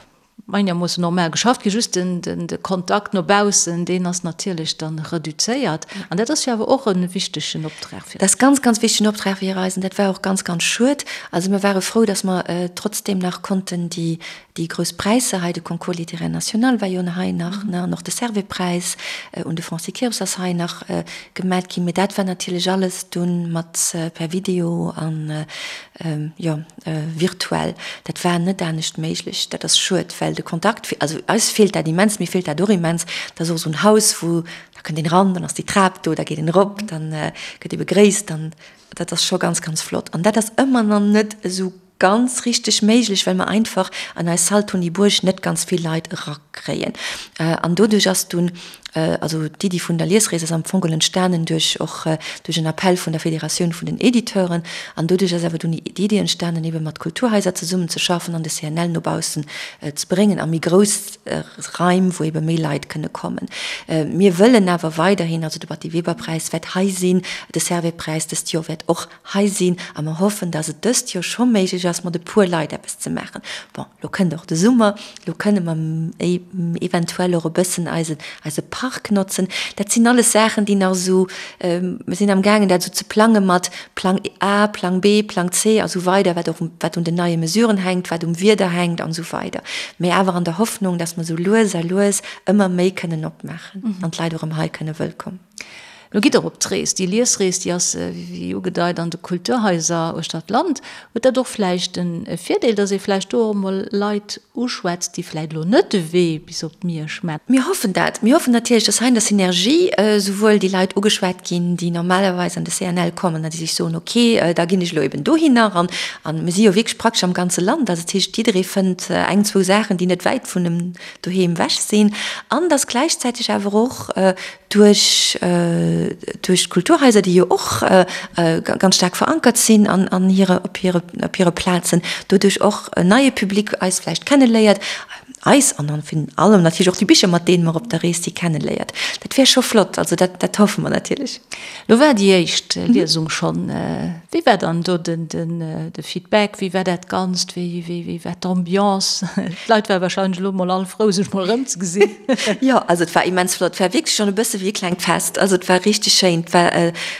einermoossen normal geschafft ginn, just den, den, de Kontakt no baussen, deen ass natierlech dann reduzéiert. An dat ass jo awer och e wichtegen Optrag fir. Dat ass ganz, ganz wichtegen Optrag fir eis an dat war och ganz, ganz schued. Also mir ware frou, dass mer trotzdeem nach konnten déi, déi grouss Präisser hei, de Concours littéraire national war jo hei nach, ne, an och de Servais-Präis un de Francis Kirps ass hei nach gemat ginn. Mee dat war natierlech alles dunn mat per Video an, jo, virtuell. Dat war net anescht méiglech. Dat ass schued, well de Kontakt, also eis feelt dat immens, mir feelt dat och immens. Dat ass och esou en Haus, wou, da kënnt een eran, dann ass déi Trap do, da geet een erop, dann gëtt ee begréisst, dann, dat ass scho ganz, ganz flott. An dat ass ëmmer nach net esou ganz richteg méiglech, well mer einfach an eis Salle Tony Bourg net ganz vill Leit erakréien. An doduerch ass dunn Also d'Iddi vun der Liesrees ass am Fong geholl entstanen duerch och duerch en Appell vun der Federatioun vun den Editeuren. An doduerch ass awer dunn d'Iddi entstanen, ebe mat Kulturhaiser zesummen ze schaffen an de CNL no baussen ze bréngen a méi grouss Raim, wou ebe méi Leit kënne kommen. Mir wëllen awer weiderhin, also de Batty-Weber-Präis wäert hei sinn, de Servais-Präis dëst Joer wäert och hei sinn a mer hoffen, dass et dëst Joer scho méiglech ass, mat e puer Leit eppes ze maachen. Bon, lo kënnt och de Summer, lo kënne mer eventuell och e bëssen eise, eise Park notzen. Dat sinn alles Saachen, déi nach esou, mer sinn amgaangen, dat esou ze plange mat Plang A, Plang B, Plang C a sou weider, wat och, wat un den neie Mesuren hänkt, wat um Wieder hänkt an esou weider. Mä awer an der Hoffnung, dass mer esou lues a lues ëmmer méi kënnen opmaachen an d'Leit och erëm hei kënne wëllkomm. Lo gitt Der op d'Rees. Déi Liesrees, déi ass, wéi ugedeit, an de Kulturhaiser uechter d'Land. Huet dat och vläicht e Virdeel, datt ee vläicht do och emol Leit uschwätzt, déi vläicht elo net de Wee bis op Miersch maachen? Mir hoffen dat. Mir hoffen natierlech, datt hei an der Synergie souwuel déi Leit ugeschwat ginn, déi normalerweis an de CNL kommen a déi sech soen, ok, da ginn ech elo eben dohinner. An mir si jo wierklech praktesch am ganze Land. Also dat heescht, jidderee fënnt eng, zwou Saachen, déi net wäit vun em doheem ewech sinn. An datt gläichzäiteg awer och duerch duerch d'Kulturhaiser, déi jo och ganz staark verankert sinn an an hire op hire op hire Plazen, doduerch och en neie Public eis vläicht kenneléiert, eis an dann virun allem natierlech och déi Bicher, mat deene mer op der Rees si kenneléiert. Dat wär scho flott, also dat dat hoffe mer natierlech. Lo war déi éischt Liesung schonn. Wéi war dann do den de Feedback? Wéi war dat Ganzt? Wéi wéi war d'Ambiance? D'Leit ware warscheinlech elo mol all frou, sech mol erëmzegesinn. Jo, also et war immens flott. Et war wierklech schonn e bësse wéi e klengt Fest. Also et war richteg schéin. Et war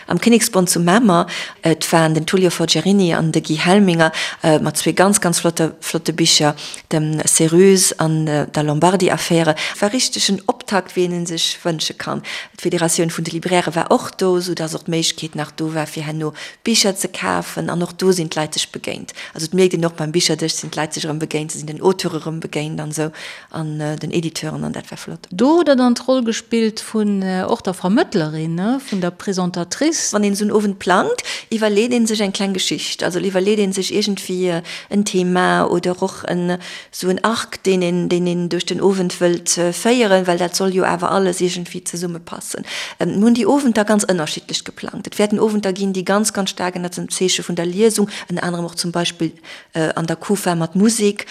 am Kinneksbond zu Mamer. Et waren den Tullio Forgiarini an de Guy Helminger mat zwee ganz, ganz flotte flotte Bicher, dem Céruse an der Lombardi-Affäre. Et war richteg en Optakt, wéi een en sech wënsche kann. D'Federatioun vun de Librairë war och do, sou dass och d'Méiglechkeet nach do war, fir herno Bicher ze kafen. An och do sinn d'Leit sech begéint. Also et mierkt een och beim Bicherdësch sinn d'Leit sech erëm begéint, se sinn den Auteure erëm begéint an esou an den Editeuren an dat war flott. Do hutt Der dann d'Roll gespillt vun och der Vermëttlerin, ne, vun der Présentatrice. Wann een esou en Owend plangt, iwwerleet ee sech eng kleng Geschicht. Also iwwerleet ee sech iergendwéi en Thema oder och en Sou en Arc, deen een, deen een duerch den Owend wëllt féieren, well dat soll jo awer alles iergendwéi zesummepassen. Mir hunn déi Owenter ganz ënnerschiddlech geplangt. Et wäerten Owenter ginn, déi ganz, ganz staark ënnert dem Zeeche vun der Liesung, ënner anerem och zum Beispill an der Kufa mat Musek,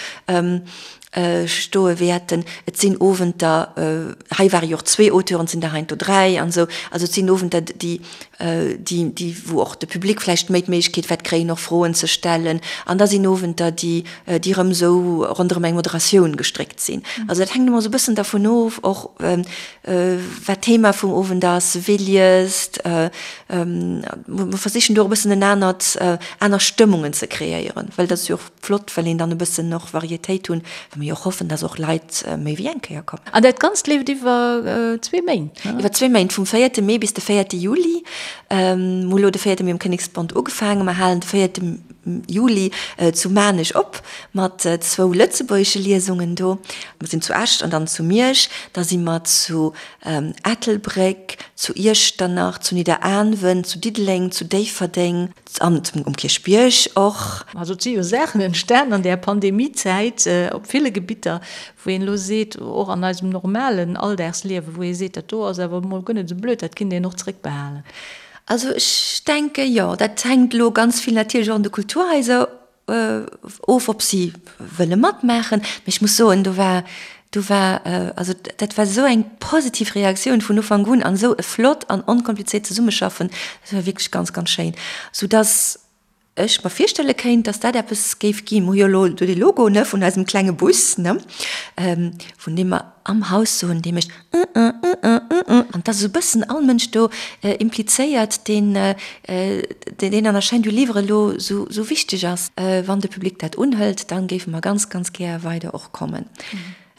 stoe wäerten. Et sinn Owenter, hei ware jo och zwee Auteuren, et sinn der heiansdo dräi an esou. Also et sinn Owenter, déi, déi, déi, wou och de Public vläicht méi d'Méiglechkeet wäert kréien, och Froen ze stellen. An da sinn Owenter, déi, déi erëm esou ronderëm eng Moderatioun gestréckt sinn. Also dat hänkt ëmmer esou e bëssen dervun of, och wat d'Thema vum Owend ass, wee liest. Mer versichen do och e bëssen en anert, aner Stëmmungen ze kreéieren, well dat ass jo och flott, well een dann e bëssen och Varietéit hunn, well mer jo och hoffen, dass och Leit méi wéi eng Kéier kommen. An dat Ganzt leeft iwwer zwee Méint, ne? Iwwer zwee Méint, vum véierte Mee bis de véierte Juli. Mer hu lo de véierte Mee um Kinneksbond ugefaangen, mer halen de véierte Juli zu Maarnech op mat zwou lëtzebuergesche Liesungen do. Mer sinn zu Esch an dann zu Miersch, da si mer zu Ettelbréck, zu Iechternach, zu Nidderaanwen, zu Diddeleng, zu Déifferdeng an um Kierchbierg och. Also et si jo Saachen entstan an där Pandemiezäit op ville. ville Gebitter, wou een elo seet, och an eisem normalen Alldagsliewen, wou ee seet, dat do ass awer emol guer net esou blöd, dat kinnt een och zréckbehalen. Also ech denke jo, dat hänkt elo ganz vill natierlech och un de Kulturhaiser of, ob si wëlle matmaachen. Mee ech muss soen, do war, do war, also dat war esou eng positiv Reaktioun vun Ufank un an esou e flott an onkomplizéiert Zesummeschaffen, dat war wierklech ganz, ganz schéin, soudass ech mer virstelle kéint, dass dat eppes géif ginn. Mer hu jo elo do dee Logo, ne, vun eisem klenge Bus, ne, vun deem mer am Haus soen, dee mécht An et ass esou e bëssen all Mënsch do implizéiert, deen, deen an der Chaîne du livre elo esou wichteg ass. Wann de Public dat unhëlt, da géife mer ganz, ganz gär weider och kommen.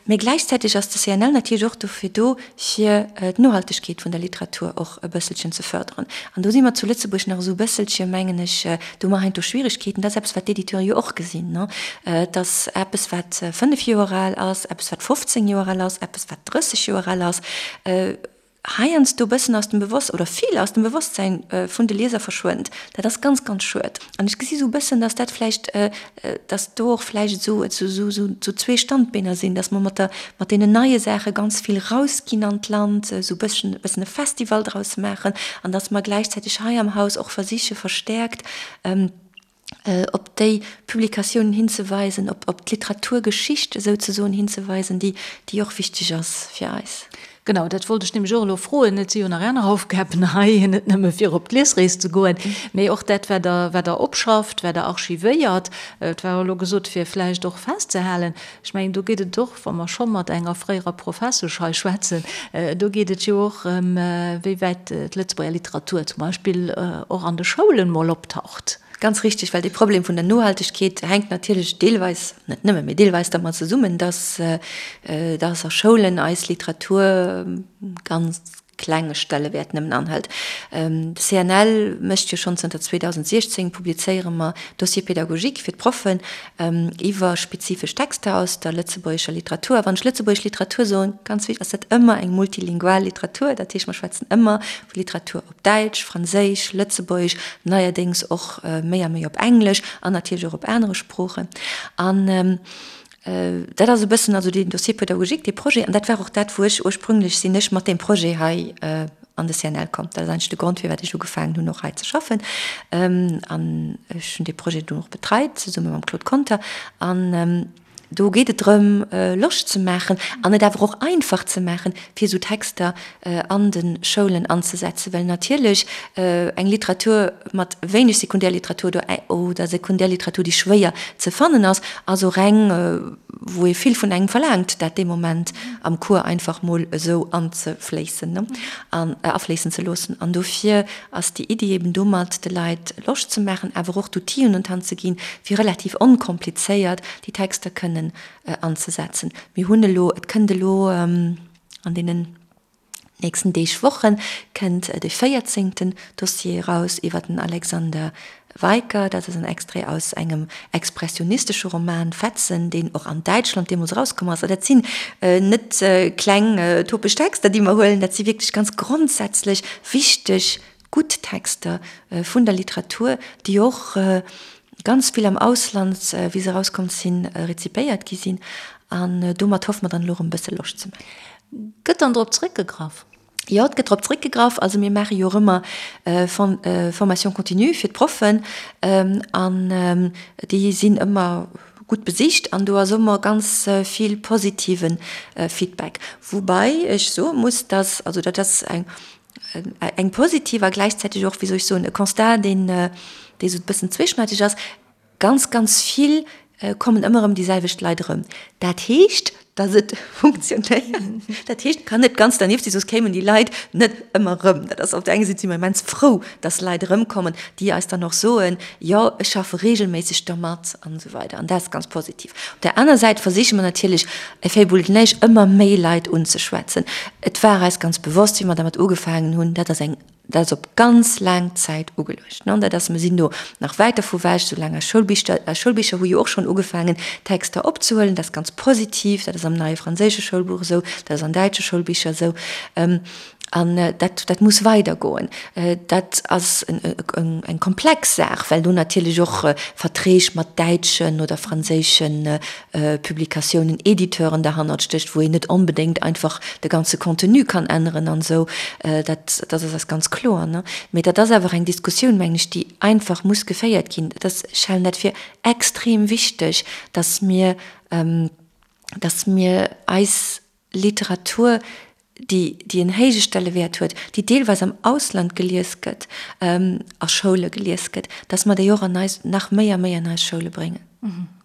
Mä gläichzäiteg ass de CNL natierlech och dofir do, fir d'Nohaltegkeet vun der Literatur och e bësselchen ze fërderen. An do si mer zu Lëtzebuerg nach esou e bësselche, mengen ech, do hu mer heiansdo Schwieregkeeten. Dat ass eppes, wat d'Editeure jo och gesinn, dass eppes, wat 5 Joer al ass, eppes, wat 15 Joer al ass, eppes, wat 30 Joer al ass, heiansdo e bëssen aus dem Bewosst oder vill aus dem Bewosstsäin vun de Lieser verschwënnt. Dat ass ganz, ganz schued. An ech gesi sou e bëssen, dass dat vläicht, dass do och vläicht esou, esou, esou zwee Standbeener sinn, dass mer mat der, mat deenen neie Saache ganz vill rausginn an d'Land, esou e bësschen, e bëssen e Festival draus maachen an dass mer gläichzäiteg hei am Haus och versiche verstäerkt, op déi Publikatiounen hinzeweisen, op, op d'Literaturgeschicht esouzesoen hinzeweisen, déi, déi och wichteg ass fir eis. Genau, dat wollt ech nämlech och elo froen. Et si jo nach aner Aufgaben hei, net nëmme fir op d'Liesrees ze goen, mee och dat, wat Der, wat Der opschafft, wat Der archivéiert. Et war elo gesot, fir vläicht och festzehalen, ech mengen, do geet et och, wa mer scho mat enger fréierer Professesch hei schwätzen, do geet et jo och ëm, wéi wäit d'Lëtzebuerger Literatur zum Beispill och an de Schoulen mol optaucht. Ganz richtig, well dee Problem vun der Nohaltegkeet hänkt natierlech deelweis, net nëmme, mee deelweis dermat zesummen, dass, dass a Schoulen eis Literatur ganz klenge Stellewäert nëmmen anhëlt. De CNL mécht jo schonn zënter 2016, publizéiere mer Dossiers pédagogiques fir d'Proffen iwwer spezifesch Texter aus der lëtzebuergescher Literatur. A wann ech lëtzebuergesch Literatur soen, ganz wichteg, ass dat ëmmer eng multilingual Literatur. Dat heescht, mer schwätzen ëmmer vu Literatur op Däitsch, Franséisch, Lëtzebuergesch, neierdéngs och méi a méi op Englesch an natierlech och op anere Sproochen. An dat ass e bëssen also deen Dossier pédagogique, dee Projet. An dat war och dat, wou ech ursprünglech sinn ech mat deem Projet hei an de CNL komm. Dat ass eigentlech de Grond, firwat ech ugefaangen hunn, och hei ze schaffen. An ech hunn dee Projet dunn och betreit, zesumme mam Claude Conter. An do geet et drëm, Loscht ze maachen an et awer och einfach ze maachen, fir esou Texter an de Schoulen anzesetzen, well natierlech eng Literatur mat wéineg Sekundärliteratur oder Sekundärliteratur, déi schwéier ze fannen ass, ass och eng, wou ee vill vun engem verlaangt, dat dee Moment am Cours einfach mol esou anzefléissen an afléissen ze loossen. An dofir ass déi Iddi eben domat, de Leit Loscht ze maachen, awer och d'Outill'en un d'Hand ze ginn, fir relativ onkomplizéiert déi Texter kënnen anzesetzen. Mir hunn elo, et kënnt elo an deenen nächsten Deeg, Woche kënnt de véierzéngten Dossier eraus iwwer den Alexander Weicker. Dat ass en Extrait aus engem expressionistesche Roman Fetzen, deen och an Däitschland deemools erauskomm ass. A dat sinn net kleng topesch Texter, déi mer huelen, dat si wierklech ganz grondsätzlech wichteg, gutt Texter vun der Literatur, déi och ganz vill am Ausland, wéi se erauskomm sinn, rezipéiert gi sinn. An domat hoffe mer dann elo erëm e bësse Loscht ze maachen. Gëtt dann drop zréckgegraff? Jo, et gëtt drop zréckgegraff. Also mir maache jo och ëmmer Formation continue fir d'Proffen an déi sinn ëmmer gutt besicht an do ass ëmmer ganz vill positive Feedback. Woubäi ech soe muss, dass, also dat ass eng eng positiv a gläichzäiteg och, wéi soll ech soen, e Constat, deen dee sou e bëssen zweeschneideg ass, Ganz, ganz vill kommen ëmmer erëm déi selwecht Leit erëm. Dat heescht, datt et funktionéiert. Dat heescht, et kann net ganz dernieft sinn, soss kéimen déi Leit net ëmmer erëm. Dat ass op der enger Säit si mer immens frou, datt Leit erëmkommen, déi eis dann och soen, jo, ech schaffe reegelméisseg dermat an esou weider. An dat ass ganz positiv. Op der aner Säit versiche mer natierlech, Effet Boule de neige, ëmmer méi Leit unzeschwätzen. Et war eis ganz bewosst, wéi mer dermat ugefaangen hunn, dat ass eng, dat ass op ganz laang Zäit ugeluecht. Dat ass, mer sinn do nach wäit dervu ewech, soulaang eis Schoulbicher, eis Schoulbicher hu jo och schonn ugefaangen, Texter opzehuelen, dat ass ganz positiv, dat ass am neie franséische Schoulbuch esou, dat ass an däitsche Schoulbicher esou. An dat, dat muss weidergoen. Dat ass eng komplex Saach, well do natierlech och Verträg mat däitschen oder franséische Publikatiounen, Editeuren derhannert stécht, wou een net onbedéngt einfach de ganze Contenu kann änneren an esou. Dat, dat ass eis ganz kloer, ne? Mee dat ass awer eng Diskussioun, mengen ech, déi einfach muss geféiert ginn. Dat ass, ech halen dat fir extrem wichteg, dass mir, dass mir eis Literatur, déi, déi en héije Stellewäert huet, déi deelweis am Ausland gelies gëtt, a Schoule gelies gëtt, dass mer déi och an eis, nach méi a méi an eis Schoule bréngen.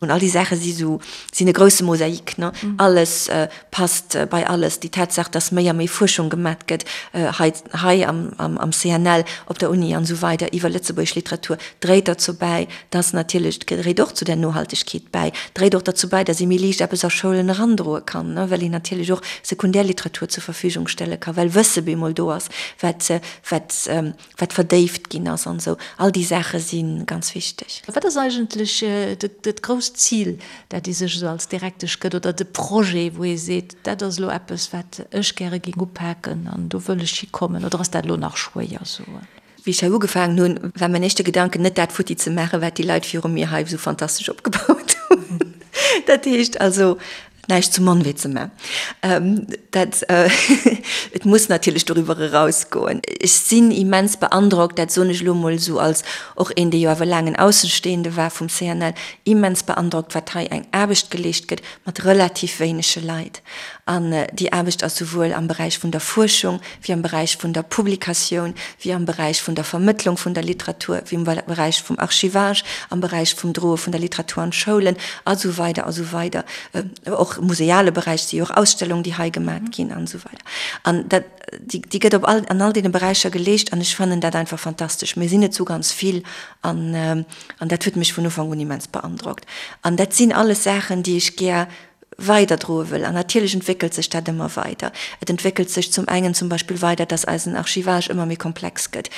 An all déi Saache si sou, sinn e grousse Mosaik, ne? Alles passt bei alles. Déi Tatsaach, dass méi a méi Fuerschung gemat gëtt hei, hei am, am CNL, op der Uni an esou weider iwwer lëtzebuergesch Literatur, dréit derzou bäi, dass natierlech, dréit och zu der Nohaltegkeet bäi, dréit och derzou bäi, dass ee méi liicht eppes a Schoulen erandroe kann, well een natierlech och Sekundärliteratur zur Verfügung stelle ka, well Wësse bemol do ass, wat, wat, wat verdéift ginn ass an esou. All déi Saache si ganz wichteg. Wat ass eigentlech dat grousst Zil, dat ee sech esou als Direktesch gëtt, oder de Projet, wou ee seet, dat ass elo eppes, wat ech gäre géing upaken an do wëll ech hikommen, oder ass dat elo nach schwéier soen? Wéi ech hei ugefaangen hunn, war mäin éischte Gedanken net dat futti ze maachen, wat déi Leit viru mir hei esou fantastesch opgebaut hunn. Dat heescht also, näischt zu mann wéi ze man. Dat, et muss natierlech doriwwer erausgoen. Ech sinn immens beandrockt, dat soen ech elo emol esou als och een, dee jo awer laang en Aussenstehende war vum CNL, immens beandrockt, wat hei eng Aarbecht geleescht gëtt mat relativ wéinege Leit. An déi Aarbecht ass souwuel am Beräich vun der Fuerschung, wéi am Beräich vun der Publikatioun, wéi am Beräich vun der Vermëttlung vun der Literatur, wéi am Beräich vum Archivage, am Beräich vum Droe vun der Literatur an d'Schoulen a sou weider a sou weider. Och am museale Beräich si jo och Ausstellungen, déi hei gemat ginn an esou weider. An dat, déi, déi gëtt op all, an all deene Beräicher geleescht an ech fannen dat einfach fantastesch. Mir sinn net sou ganz vill an, an dat huet mech vun Ufank un immens beandrockt. An dat sinn alles Saachen, déi ech gär weiderdroe wëll. An natierlech entwéckelt sech dat ëmmer weider. Et entwéckelt sech zum engen zum Beispill weider, dass eisen Archivage ëmmer méi komplex gëtt.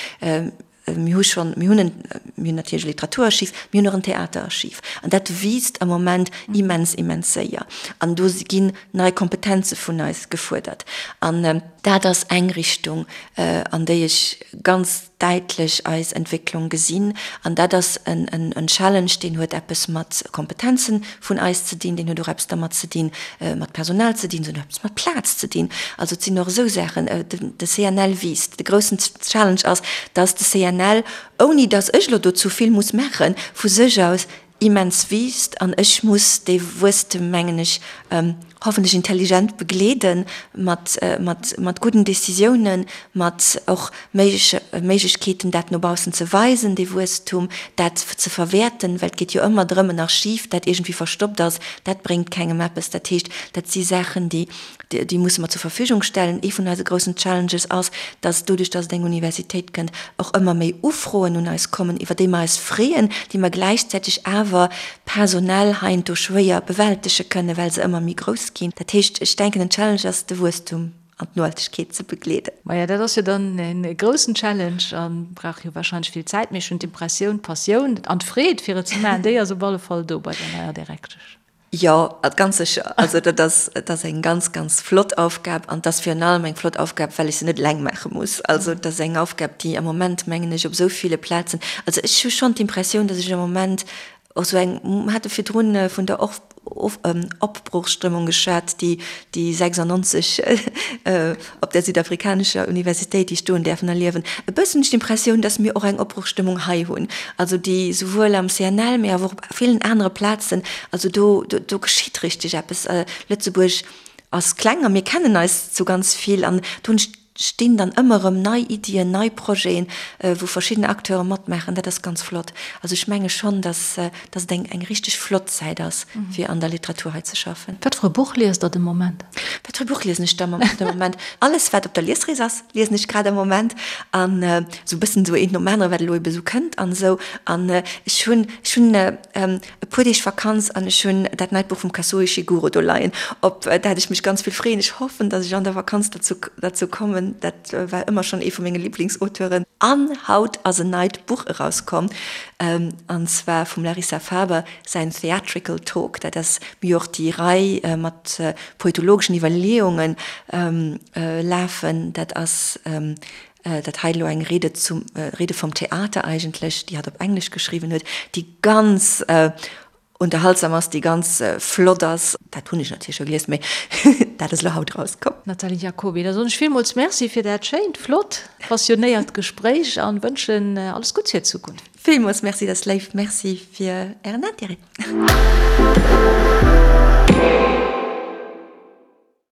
Mir hu schonn, mir hunn en, mir hunn natierlech e Literaturarchiv, mir hunn och en Theaterarchiv. An dat wiisst am Moment immens, immens séier. An do ginn nei Kompetenze vun eis gefuerdert. An dat ass eng Richtung, an déi ech ganz däitlech eis Entwécklung gesinn. An dat ass en Challenge, deen huet eppes mat Kompetenzen vun eis ze dinn, deen huet och eppes dermat ze dinn, mat Personal ze dinn, se huet och eppes mat Plaz ze dinn. Also et sinn och esou Saachen. De CNL wiisst. De groussen Challenge ass, dass de CNL, ouni dass ech elo dozou vill muss maachen, vu sech aus immens wiisst an ech muss dee Wuesstem, mengen ech, hoffentlech intelligent begleeden, mat, mat, mat gudden Décisiounen, mat och méigleche Méiglechkeeten, dat no baussen ze weisen, dee Wuesstum, dat ze verwäerten, well et geet jo ëmmer drëm, en Archiv, dat iergendwéi verstoppt ass, dat bréngt kengem eppes. Dat heescht, dat si Saachen, déi, déi musse mer zur Verfügung stellen. Ee vun eise groussen Challenges ass, dass doduerch, dass et eng Universitéit kënnt, och ëmmer méi Ufroen un eis kommen, iwwer déi mer eis freeën, déi mer gläichzäiteg awer personell heiansdo schwéier bewältege kënnen, well se ëmmer méi grouss ginn. Dat heescht, ech denken, en Challenge ass, de Wuesstum an d'Nohaltegkeet ze begleeden. Maja, dat ass jo dann e groussen Challenge a brauch jo wahrscheinlech vill Zäit. Mee ech hunn d'Impressioun, d'Passioun an d'Freed, fir et ze maachen, déi ass op alle Fall do bei der neier Direktesch. Jo, ganz sécher. Also dat ass, et ass eng ganz, ganz flott Aufgab an et ass virun allem eng flott Aufgab, well ech se net eleng maache muss. Also et ass eng Aufgab, déi am Moment, mengen ech, op esou ville Plazen, also ech hu schonn d'Impressioun, datt ech am Moment och esou eng, mer hate virdrun vun der Opbruchsstëmmung geschwat, déi déi 96 op der südafrikanescher Universitéit, déi ech do hunn däerfen erliewen, e bëssen hunn ech d'Impressioun, dass mir och eng Opbruchsstëmmung hei hunn, also déi souwuel am CNL, mee awer och op villen anere Plazen, also do, do geschitt richteg eppes. Lëtzebuerg ass kleng a mir kennen eis zu ganz vill an do hunn ech stinn dann ëmmer erëm nei Iddien, nei Projeten, wou verschidden Acteure matmaachen. Dat ass ganz flott. Also ech menge schonn, dass, dass et eng, eng richteg flott Zäit ass, fir an der Literatur hei ze schaffen. Wat fir e Buch liest Der de Moment? Wat fir e Buch liesen ech de Moment? Alles, wat op der Liesrees ass, liesen ech grad am Moment. An esou e bëssen esou eent nom anere, wat elo ebe esou kënnt an esou. An ech hunn, ech hunn e puer Deeg Vakanz an ech hunn dat neit Buch vum Kazuo Ishiguro do leien, op dat ech mech ganz vill freeën. Ech hoffen, datt ech an der Vakanz derzou, derzou kommen. geschriwwen. Dat war ëmmer schonn ee vu menge Liblingsauteuren. An haut ass en neit Buch erauskomm, an zwar vum Larissa Faber säin Theatrical Talk. Dat ass mir och déi Rei mat poetologeschen Iwwerleeungen lafen. Dat ass dat hei elo eng Rede zum, Rede vom Theater eigentlech, déi hatt op Englesch geschriwwen huet, déi ganz unterhaltsam ass, déi ganz flott ass. Dat hunn ech natierlech scho gelies, mee dat ass elo haut erauskomm. Nathalie Jacoby, da soen ech villmools Merci fir dat schéint, flott, passionéiert Gespréich an wënschen alles Gutts fir d'Zukunft. Villmools Merci, dat ass léif. Merci fir Ären Intérêt.